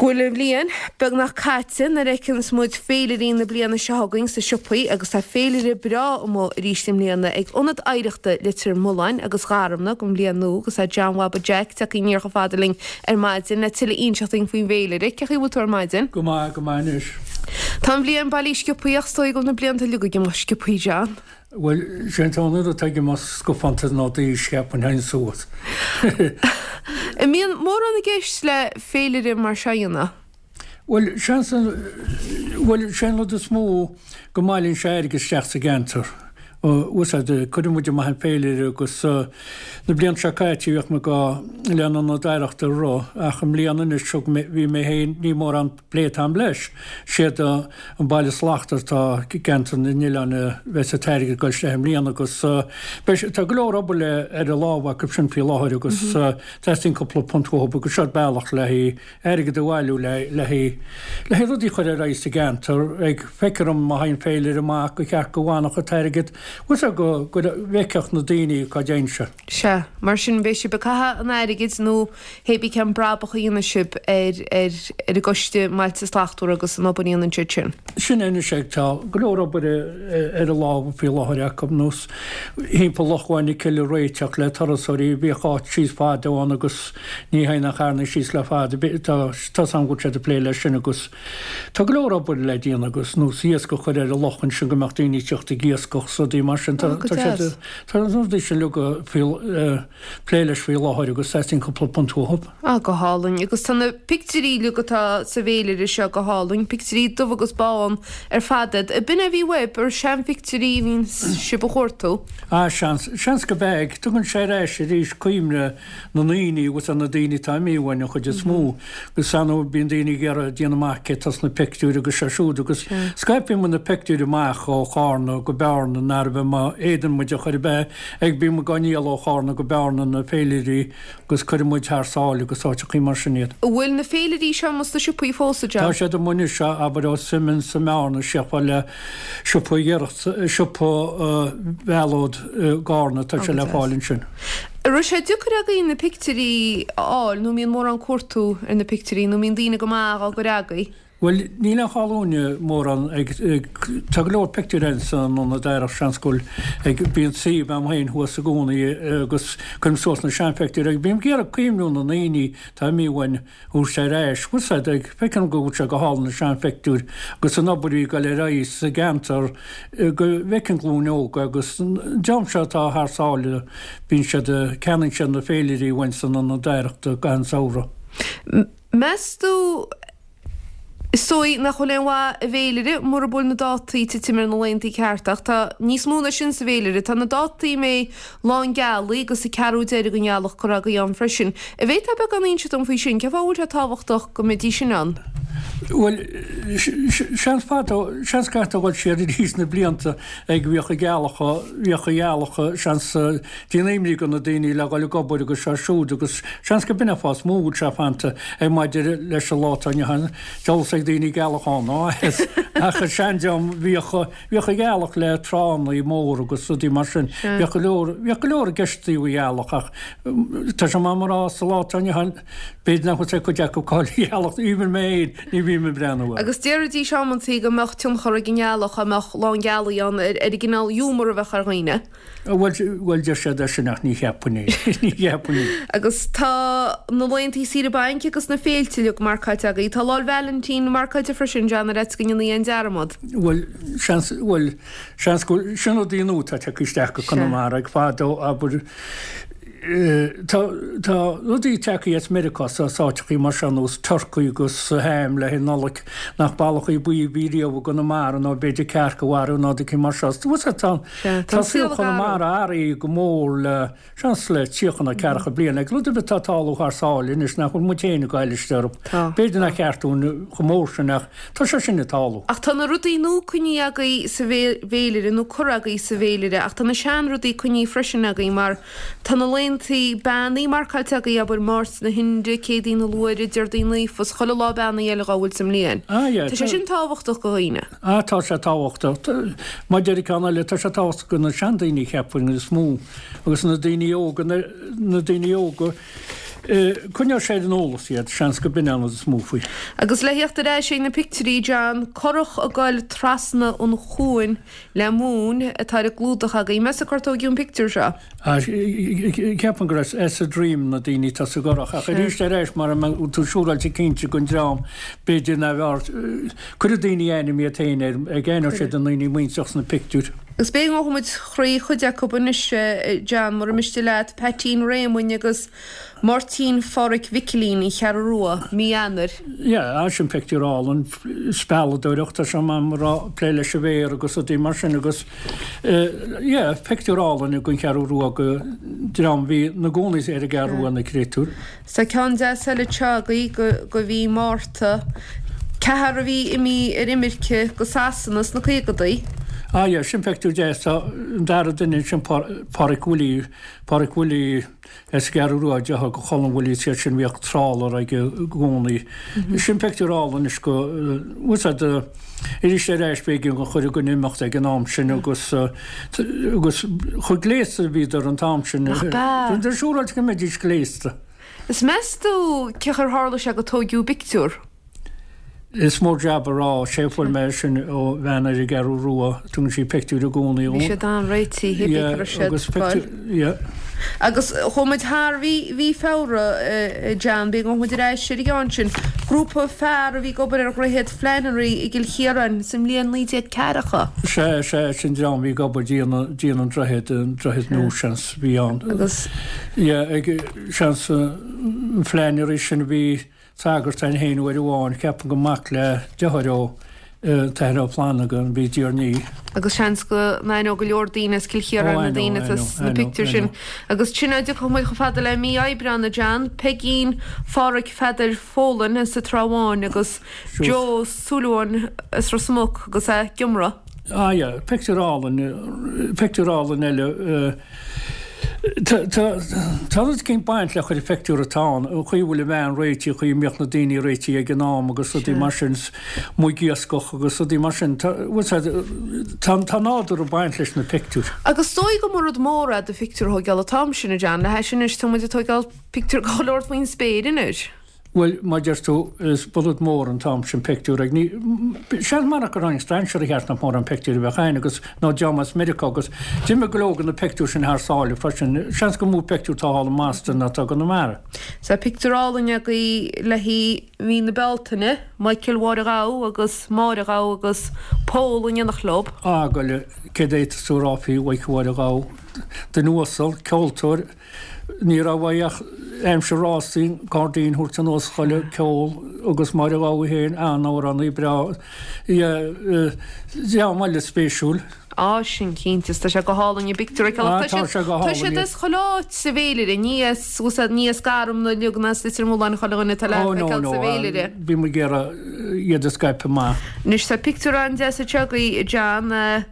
Go bhfuil an bhliain beagnach caite nuair a fheiceanns muid féilirí na bliana seo chugainn sna siopaí agus tá féilire breá amuigh arís i mbliana ag Ionad Oidhreachta Leitir Mealláin agus Gharumna don bhliain nua agus tá John Bhaba Jack tagtha aniar chomh fada linn ar maidin le tuilleadh a inseacht dúinn faoin bhféilire. Cén chaoi a bhfuil tú ar maidin? Go maith, go maith anois. Tá an bhliain bailithe sciobthaí ach is dóigh go bhfuil na blianta uilig ag imeacht sciobthaí John. Bhuel, sé an t-aon rud atá ag imeacht scafánta ná d'aois, cheapfainn, théann suas. An mbíonn mórán i gceist le féilire mar seo a dhéanamh? Bhuel, seans, bhuel, sé an rud is mó go mbailíonn sé airgead isteach sa gceantar. Úsáid, cuireann muid amach an féilire agus na blianta seo caite bhíodh muid go le an Ionad Oidhreachta a rith ach i mbliana anois thug mé, bhí mé féin, ní mórán plé atá agam leis. Siad an Baile Slachtmhar atá i gceantar na n-oileán a bheas an t-airgead ag dul isteach i mbliana agus beidh, tá go leor obair le ar a lámha acu sin faoi láthair agus teastaíonn cúpla punt uathu agus seo bealach le haghaidh airgead a bhailiú le le haghaidh le haghaidh rudaí a chur ar aghaidh sa gceantar. Ag feictear dom má théann féilire amach gur cheart go bhfanfadh an t-airgead bhfuil go go bhfeicfeadh na daoine cá dtéann sé. Sea, mar sin beidh sibh ag caitheamh an airgid nó hé bí cén brabach a dhéanfaidh sibh ar ar ar an gCoiste mBailte Slachtmhara agus an obair a dhéanann siad sin. Sin é anois é, tá go leor obair ar a lámha faoi láthair acu, nós thimpeall Loch Mhuin na Cille a réiteach le turasóirí, bhíodh áit síos fada ann agus ní théann ach carranna síos le fada, tá tá's agam go bhfuil siad ag plé leis sin agus tá go leor obair le déanamh agus nós iasc a chur ar an loch ansin go mbeadh daoine ag teacht ag iascach 's rudaí mar sin, tá tá siad tá na rudaí sin uilig faoi plé leis faoi láthair agus teastaíonn cúpla punt uathu. Ah, go hálainn. Agus tá na pictiúirí uilig atá sa bhféilire seo go hálainn, pictiúirí dubh agus bán ar fad iad. Ab in é a bhí uaibh, ar seanphictiúirí a bhíonn sibh a chuartú? Ah, seans, seans go b'ea. Tugann sé ar ais arís cuimhne na ndaoine agus ar na daoine atá imithe uainn an chuid is mó. Agus ar ndóigh bíonn daoine ag iarraidh déanamh amach cé atá sna pictiúir agus seo siúd agus scaipeann muid na pictiúir amach ó Chárna go Bearna nárbh é má fhéadann muid a chur ar bith ag bíonn muid á ndíol ó Chárna go Bearna na féilirí agus cuireann muid thar sáile agus áiteachaí mar sin iad. An bhfuil na féilirí seo amuigh sna siopaí fós, a John? Tá siad amuigh anois, abair ó Simonds i mBearna isteach fad le siopa Ghiorracht, siopa Mhealóid i gCárna, tá sé le fáil ansin. An raibh sé deacair agaibh na pictiúirí a fháil nó an mbíonn mórán cuartú ar na pictiúirí nó an mbíonn daoine go maith á gcur agaibh? Bhuel, níl aon chall uainne mórán ag, tá go leor pictiúr ann san Ionad Oidhreachta, seans go bhfuil, ag, bíonn suíomh a'm féin thuas i gcónaí agus cuirim suas na seanphictiúir ag, bím ag iarraidh cuimhniú na ndaoine atá imithe uainn a thabhairt ar ais, bhfuil 's a'd, ag, feicim go bhfuil sé go hálainn na seanphictiúir agus an obair a bhí ag dul ar aghaidh sa gceantar go bhfeiceann glúin óg agus an dream seo atá thar sáile, bíonn siad, ceannaíonn siad na féilirí uainn san Ionad Oidhreachta gach aon samhradh. Meas tú, is dóigh nach bhfuil aon mhaith i bhféilire mura bhfuil na dátaí ag titim ar na laethanta cearta, ach tá níos mó ná sin sa bhféilire. Tá na dátaí a mbeidh Lá an Ghealaigh agus an ceathrú deiridh den ghealach curtha agaibh ann freisin. An bhféadfá beagán a inse dom faoi sin? Cén fáth a bhfuil sé tábhachtach go mbeidís sin ann? Bhuel, seans fadó, seans go gcaithfeá dul siar arís na blianta ag bhíodh an ghealach, bhíodh an ghealach, seans, déanamh imní do na daoine le dhul ag obair agus seo siúd agus seans go b'in an fáth is mó a bhfuil sé fanta ag maidir leis an lá atá inniu ann, dealbhas ag daoine gealach ann ná as ach an seandream bhíodh bhíodh an ghealach le tránna móra agus rudaí mar sin bhíodh go leor bhíodh go leor i gceist i dtaobh an ghealach ach tá sé maith mar rá sa lá atá inniu ann b'fhéidir nach bhfuil cuid acu cáil an ghealach even mé féin ní bhím ag breathnú air. Agus déarfaidís amantaí go mbeadh tionchar ag an ngealach dá mbeadh lá an ghealaigh ann ar an gcineál iúmar a bheadh ar dhaoine. Bhuel, bhuel, deir siad é sin ach ní cheapfainn é. Ní cheapfainn é. Agus tá na laethantaí saoire bainc agus na féilte uilig marcáilte agaibh. Tá Lá 'le Vailintín marcáilte freisin, John, ar fhaitíos go ndéanfaí aon dearmad. Bhuel, seans, bhuel, seans go bhfuil, sin rudaí nua atá tagtha isteach go Conamara ag fadó, abair, Tá, tá rudaí tagtha as Meiriceá is as áiteachaí mar seo nós turcaí agus ham le haghaidh Nollaig nach ballachaí buí a bhí riamh i gConamara nó b'fhéidir cearc a mharú nó rudaí mar seo. Bhuel tá, tá saol Chonamara athraithe go mór le, seans le 30 nó 40 bliain. Ag rud ar bith atá ag tarlú thar sáile anois nach bhfuil muid féin ag goil isteach orthu. B'fhéidir nach ceart dúinn chomh mór sin ach tá sé sin ag tarlú. Ach tá na rudaí nua coinnithe agaibh sa bhféilire nó curtha agaibh sa bhféilire ach tá na seanrudaí coinnithe freisin agaibh mar Tá na laethantaí beannaithe marcáilte agaibh, abair, Máirt na hInde, Céadaoin na Luaithre, Déardaoin Naofa, is chuile lá beannaithe eile dhá bhfuil sa mbliain. Ah, yeah. Tá sé sin tábhachtach do dhaoine. Ah, tá sé tábhachtach. Mar deir ceann eile, tá sé tábhachtach do na seandaoine, cheapfainn, is mó, agus na daoine óga, na daoine óga. Coinneoidh sé ar an eolas iad, seans go b'in an rud is mó faoi. Agus le theacht ar ais ag na pictiúirí, John, curach ag goil trasna an chuain le móin atá ar an gclúdach againn. Meas tú cár tóigeadh an pictiúr seo? Ceapaim gur as as a Dream na daoine atá sa gcurach ach arís ar ais mara mbeadh tú siúráilte cinnte gon dream b'fhéidir ná bheadh cuirfidh daoine ainm iad féin air ag aithneoidh siad a ndaoine muinteartha sna pictiúir. Agus b'fhéidir go ngabhfaidh muid thrí chuid acu anois John, mura miste leat, Peaitín Réamoinn agus Máirtín Phádhraic Mhicilín, An Cheathrú Rua, mí Eanáir. Yeah, sin pictiúr álainn, spealadóireacht, tá sé mar a plé leis an bhféar agus rudaí mar sin agus yeah, pictiúr álainn gon Cheathrú Rua go dream bhí na gcónaí ar an gCeathrú Rua na créatúir. Tá ceann deas eile anseo agaibh go go mhí Márta, ceathrar a bhí imithe ar imirce go Sasana sna caogadaí. Ah yeah, sin pictiúr deas, tá an dara duine ansin Páraic Willie, Páraic Willie, As an gCeathrú Rua, deartháir go Cholm Willie is iad sin bhíodh trawler aige i gcónaí. Sin pictiúr álainn anois go, bhfuil 's a'd, arís ar ais b'éigean go chuir gon imeacht ag an am sin agus, agus chomh gléasta a bhíodar an t-am sin. Nach b'ea? Bhíodar siúráilte go mbeidís gléasta. Is meas tú cén chaoi ar tharla sé go tóigeadh an pictiúr? Is mór jab a rá, sé fuair mé sin ó bhean ar an gCeathrú Rua, tugann sí pictiúir i gcónaí dhom. Bhí siad an-réitithe, bhí go raibh siad ag fáil. Yeah. Agus chuaigh muid thar mhí, mhí Feabhra, John, b'fhéidir go ngabhfaidh muid ar ais ar an gceann sin. Grúpa fear a bhí ag obair ar Dhroichead Flannery i gCill Chiaráin sa mbliain 1940. Sea, sea, sin dream a bhí ag obair déanamh, déanamh an droichead, an droichead nua seans a bhí ann. Agus. Yeah, ag, seans, an Flannery sin a bhí, Sagart ann féin uair amháin, ceapaim gur mac le deartháir ó t-Athair Ó Flannagáin a bhí Diarnaí. Agus seans go n-aithneodh go leor daoine as Cill Chiaráin na daoine atá sna pictiúir sin. Agus sin é, tiocfaidh muid chomh fada le mí Aibreáin, a John, Peigín Pháraic Pheadair Folan as an Trá Bháin agus Joe Súilleabháin as Ros Muc agus é ag iomramh. Ah yeah, pictiúr álainn, pictiúr álainn eile. Tá rud eicínt ag baint le chuile phictiúr atá ann, an chaoi a bhfuil an bhean réitithe, an chaoi a mbíodh na daoine réitithe ag an am agus rudaí mar sin, amuigh ag iascach agus rudaí mar sin. Tá, bhfuil 's a'd, tá, tá nádúr ag baint leis na pictiúir. Agus is dóigh go mba rud mór é do phictiúr a thóigeáil an t-am sin, a John, le hais anois, tá muid ag tóigeáil pictiúr de chuile shórt faoin spéir anois. Bhuel, mar deir tú, is ba rud mór an t-am sin pictiúr ag ní, seans marach gur tháinig strainséirí thart nach mórán pictiúr a bheadh ann agus nó dream as Meiriceá agus d'imigh go leor de na pictiúir sin thar sáile freisin. Seans gur mó pictiúr atá thall i mBoston ná atá i gConamara. Tá pictiúr álainn agaibh le haghaidh mhí na Bealtaine, Michael Mháire Ghabha agus Máire Ghabha agus Pól in éineacht leo. Á, goile, céard a fhéadfas tú a rá faoi Mhichael Mháire Ghabha? Duine uasal, ceoltóir, Ní raibh uaidh ach aimsir rástaí, cairdín a thabhairt anuas chuile ceol agus Máire Ghabha féin, an-amhránaí breá. Dream eile spéisiúil. Á, sin cinnte, is tá sé go hálainn i bpictiúr a Á, tá sé go hálainn. Tá siad as chuile áit sa bhféilire, ní as, ní as Garmna uilig ná as Leitir Mealláin chuile dhuine atá le feiceáil sa bhféilire. Bhí muid ag iarraidh iad a scaipeadh amach. Anois tá pictiúr an-deas anseo agaibh, John.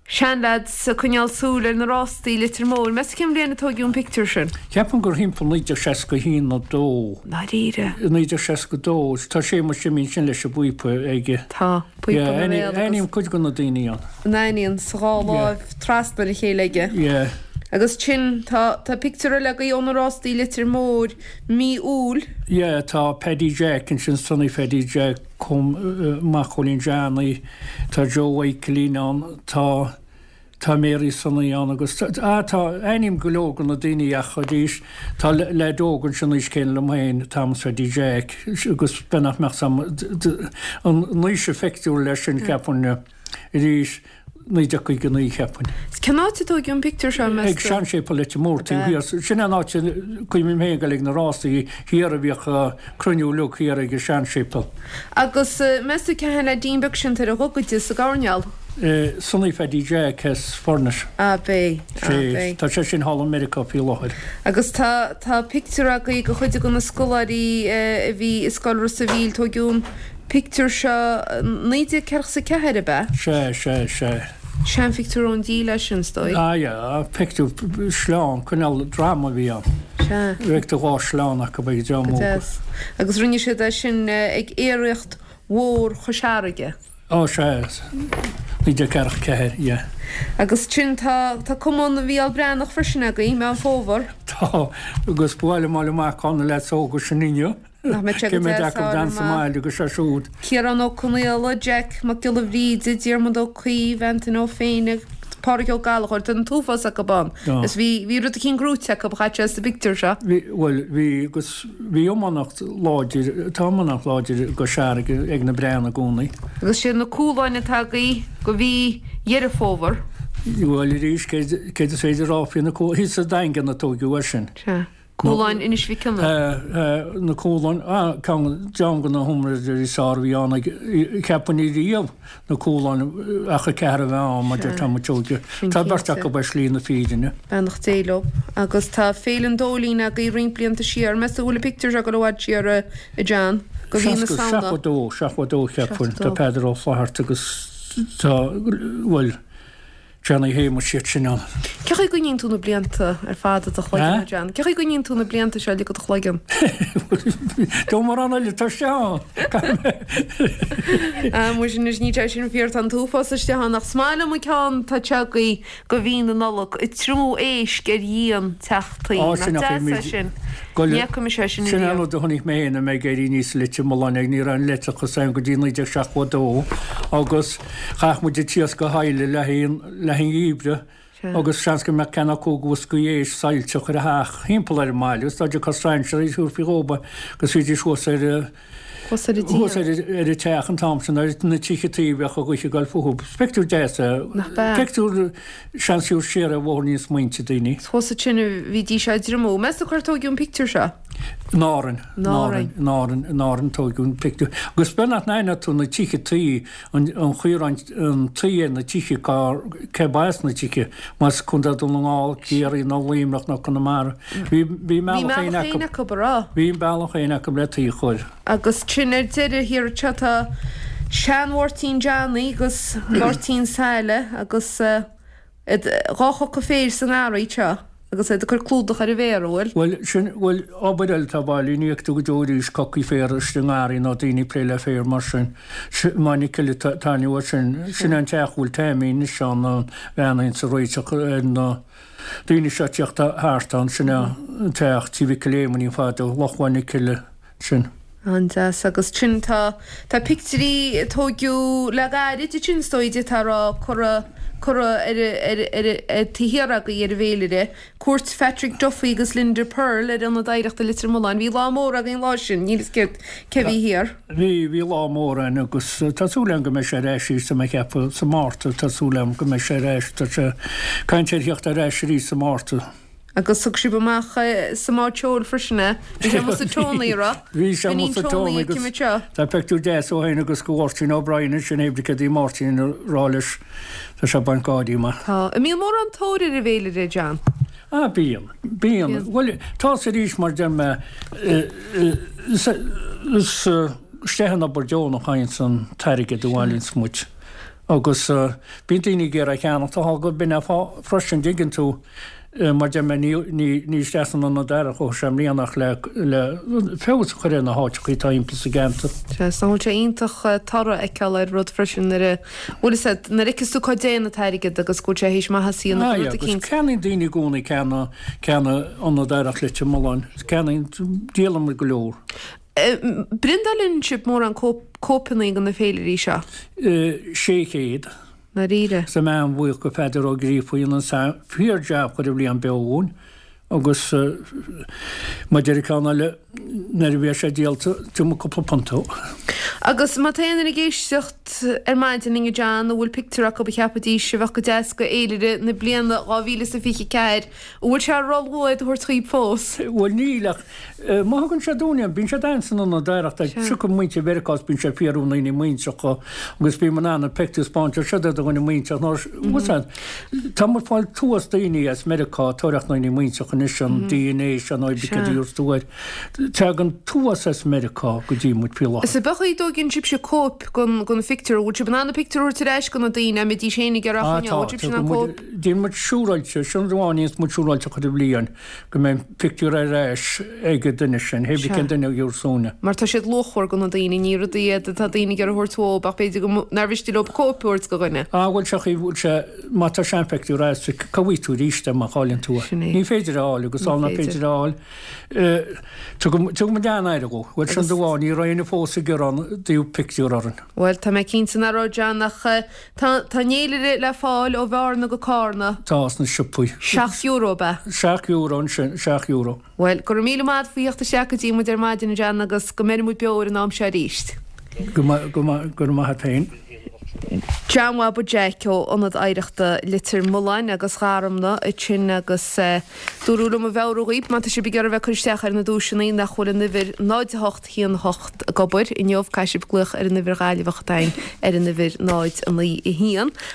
Seanleaids ag coinneáil súil ar na rástaí i Leitir Móir. Meas tú cén bhliain a tóigeadh an pictiúr sin? Ceapaim gur thimpeall 1961 nó 2. Ndáiríre? 1962. Tá Séamus Jimí ansin leis an bpíopa aige. Tá, píopa ina bhéal agus. Aithním cuid de na daoine ann. An aithníonn sa dhá láimh trasna ar a chéile aige. Yeah. Agus sin, tá, tá pictiúr eile agaibh ó na rástaí i Leitir Móir, mí Iúil. Yeah, tá Paddy Jack ansin, Sonny Phaddy Jack. Com, mac Chóilín Johnny, tá Joe Mhichaelín ann, tá, tá Mary Sonny ann agus tá, ah tá, aithním go leor de na daoine ach arís tá leaid óg ansin aois céanna liom féin, Thomas Phaddy Jack agus b'fhéidir nach mbeadh Sam, an aois an phictiúir leis sin cheapfainn arís. 1959 cheapfainn. Cén áit a tóigeadh an pictiúr seo, meas tú? Ag seanséipéal Leitir Móir taobh thiar. Sin é an áit a cuimhním féin ag dul ag na rásaí thiar a bhíodh cruinniú uilig thiar ag an seanséipéal. Agus meas tú cé hé an leaidín beag sin atá ar a ghogaide sa gcoirnéal? Sonny Phaddy Jack as Furnace. Ab é, ab é. Tá sé sin thall i Meiriceá faoi láthair. Agus tá, tá pictiúr agaibh de chuid de na scoláirí a bhí i Scoil Ros a' Mhíl, tóigeadh an Pictiúr seo 1944 ab ea? Sea, sea, sea. Seanphictiúr ón díle é sin, is dóigh. Ah yeah, pictiúr sleán, cineál drama a bhí ann. Sea. Bheadh do dhá shleán acu ag dream Go óg. deas. Agus rinne siad é sin ag aeraíocht mhór Chois Fharraige. Ó sea. 1944, yeah. Agus sin, tá, tá Cumann Mhícheál Breathnach freisin againn, Meán Fómhair. Tá, agus ba mhaith liom fháil amach cá na leaids óga sin inniu. Nach mbeadh sé Cé go mhéad deas acu fháil d'fhan sa amach. mbaile agus é siúd. Ciarán Ó Conaola, Jack Mac Giolla Bhríde, Diarmuid Ó Caoimh, Antaine Ó Féinne, Pádraig Ó Gallchóir, tá an t-uafás acu ann. Tá. Is bhí, bhí rud eicínt gnóite acu, chaith sé sa bpictiúr seo. Bhí, bhuel, bhí agus bhí iománacht láidir, tá iománacht láidir i gCois Fharraige ag na Breathnaigh i gcónaí. Agus sé na Cualáin atá agaibh do mhí Dheireadh Fómhair. Bhuel, arís, céard, céard is féidir a rá faoi na Cualáin, thíos sa Daingean a tóigeadh é sin. Sea. Cualáin Inis Mhic Cionnaith. Na Cualáin, ceann de na hiomaitheoirí is fearr a bhí ann ag, cheapfainn riamh, na Cualáin ach a ceathrar a bheith ann mar deir tá muid óige. Tá beirt acu ar shlí na fírinne. Beannacht Dé leo. Agus tá Féile an Dóilín agaibh roinnt blianta siar. Meas tú an bhfuil an pictiúr seo ag dul i bhfad siar a John? Go mhí na Samhna. 72, 72 cheapfainn. Tá Peadar Ó Flatharta agus tá, bhuel, Johnny Shéamuis iad sin ann. Cé chaoi a gcoinníonn tú na blianta ar fad i do chloigeann, a John? Cé chaoi a gcoinníonn tú na blianta seo uilig i do chloigeann? Tá mórán eile atá isteach ann. Ah, muise anois, níl sé sin fíor, tá an t-uafás isteach ann, ach is maith liom an ceann atá anseo agaibh do mhí na Nollag, ag triomú éisc ar dhíon teach tuí. Á, sin Nach ach deas é sin? Ní fhaca mise é sin Sin an ariamh. rud a chonaic mé féin, mé ag éirí aníos i Leitir Mealláin, ach ní raibh an leictreachas ann go dtí 1972 agus Chaith muid an t-iasc a shailleadh le haghaidh an gheimhridh agus seans go mbeadh ceann acu bhoscaí éisc saillte ar a theach thimpeall ar an mbaile agus dá dtiocfadh strainséirí thabharfaí dhóibh é agus bhídís thuas ar Thuas ar an thuas díon. ar an teach an t-am sin ar na tithe tuí a bheadh an ghaoth ag goil fúthu. Pictiúr deas é. Nach b'ea? Pictiúr seans siúd siar ar bhóithríní smaointe daoine. Thuas ansin a bhídís á dtriomú. Meas tú cár tóigeadh an pictiúr seo? In Árainn. In Árainn. In Árainn, in Árainn tóigeadh an pictiúr. Agus b'fhéidir nach n-aithneodh tú na tithe tuí, an chaoi a raibh an tuí ar na tithe, cá, cé ba as na tithe, más Contae Dhún na nGall, Ciarraí nó Luimneach nó Conamara. Bhí, bhí a Bhí mbealach féin mbealach acu. féin acu, a raibh? Bhí a mbealach féin acu le tuí a chur. Agus sin ar deireadh thiar anseo tá sean-Mháirtín Johnny agus Máirtín Saile agus iad dhá choca féir sa ngarraí anseo agus iad ag cur clúdach ar an bhféar, an bhfuil? Bhuel, sin, bhuel, obair eile atá bailithe, ní fheicfidh tú go deo arís cocaí féir istigh i ngarraí ná daoine ag plé le féar mar sin. Maigh na Cille taitneamh as sin. Sin an teach a bhfuil Taimí anois ann, an bhean a bhíonns ag réiteach ar na daoine seo ag tíocht thart ann, sin é an teach, Tí Mhicil Éamoinn fadó, Loch Mhaigh na Cille. sin. An-deas. Agus sin, tá, tá pictiúirí a tóigeadh le gairid ansin is dóigh d'fhéadfá a rá, curtha, curtha ar, ar, ar, ar taobh thiar agaibh ar an bhféilire. Cuairt Phatrick Duffy agus Linda Purl ar Ionad Oidhreachta Leitir Mealláin. Bhí lá mór againn an lá sin, níl fhios céard, cé bhí thiar. Bhí, bhí lá mór ann agus tá súil agam go mbeidh sé ar ais arís tá mé ag ceapadh sa Márta, tá súil agam go mbeidh sé ar ais, tá sé caint ar theacht ar ais arís sa Márta. Agus thug sibh amach sa mbád seoil freisin é. Bhí sé amuigh sa Tony, a raibh? Bhí sé amuigh sa Tony agus tá pictiúr deas ó shin agus go Mháirtín O'Brien ansin hé cad í Máirtín a rá leis tá sé ag baint gáirí amach. Tá. An mbíonn mórán tóir ar an bhféilire, John? Ah bíonn. Bíonn. Bhuel tá 's arís mar deir mé is isteach in obair deonach a théanns an t-airgead a bhailíonns muid agus bíonn daoine ag iarraidh a cheannacht tá go b'in é fáth freisin dtuigeann tú Mar deir mé, ní isteach san Ionad Oidhreachta a chuaigh sé i mbliana ach le feabhas a chur ar na háiteacha atá thimpeall sa gceantar. Sea, is nach bhfuil sé iontach toradh a fheiceáil ar rud freisin nuair a, bhfuil fhios agat, nuair a fheiceas tú cá dtéann an t-airgead agus go bhfuil sé théis maitheas a dhéanamh do rud Agus eicínt. ceannaíonn daoine i gcónaí ceanna, ceanna Ionad Oidhreachta Leitir Mealláin. Ceannaíonn, díolann muid go leor. Priontálann sibh mórán cóipeanna de na féilirí seo? 600. ndáiríre. Tá mé an-bhuíoch go Pheadar Ó Gríofa a dhein an fíor-jab chuile bhliain beo dhúinn agus mar deir an ceann eile nuair a bheas sé díolta tabharfaidh mé cúpla punt dó. Agus má tá aon duine ag éisteacht ar maidin linn a John a bhfuil pictiúr acu a cheapfaidís a bheadh go deas go fhéilire na bliana 2024, an bhfuil sé ró-luath iad a thabhairt chugaibh fós? Bhuel níl ach Má thugann siad dúinn iad, bíonn siad ann san ionad oidhreachta, tiocfaidh muintir Mheiriceá is bíonn siad ag fiafraí na ndaoine muintreacha agus bím in ann an pictiúr a 'spáint ar siad do dhuine muintreach nó what's that? Tá muid ag fáil tuas daoine as Meiriceá ag tóraíocht na ndaoine muintreacha anois an DNA seo nó cad a dúirt tú air. Tagann an t-uafás as Meiriceá go dtí muid faoi láthair. Is ab é an chaoi a dtóigeann sibhse cóip den den phictiúr, an bhfuil sibh in ann an pictiúr a thabhairt ar ais go na daoine, a mbeidís féin ag iarraidh a choinneáil, an bhfuil sibhse in ann cóip? Déanann muid siúráilte, sin rud amháin a dhéanas muid siúráilte chuile bhliain, go mbeidh an pictiúr ar ais ag an duine sin, hé bith cén duine a gheobhas uainne. Mar tá siad luachmhar go na daoine, ní rudaí iad atá daoine ag iarraidh a thabhairt uathu ach b'fhéidir go nár mhiste leo cóip a thabhairt go dhuine. Ah bhuel seo chaoi, bhuel sé, má tá seanphictiúr agat, cá bhfaighidh tú arís é má chailleann tú é? Sin é. Ní féidir é a fháil agus sul nach féidir é a fháil, Tugann muid an-aire dhó. Bhuel, sin rud amháin, ní raibh éinne fós ag gearán i dtaobh pictiúr orainn. Bhuel, tá mé cinnte nach raibh, John, ach tá tá an fhéilire le fáil ó Bhearna go Cárna. Tá, sna siopaí. €7 ab ea? €7 ansin, €7. Bhuel, go raibh míle maith agat faoi theacht isteach go dtí muid ar maidin, a John, agus go mbeire muid beo ar an am seo arís. Go raibh maith agat féin. John Bhaba Jeaic ó Ionad Oidhreachta Leitir Mealláin agus Gharumna ansin agus dúradh liom a mheabhrú dhaoibh má tá sibh ag iarraidh bheith ag cur isteach ar na duaiseanna nach bhfuil an uimhir 0 8 1 8 ag obair inniu caithfidh sibh glaoch ar an uimhir Ghaillimheach atá againn ar an uimhir 0 9 1.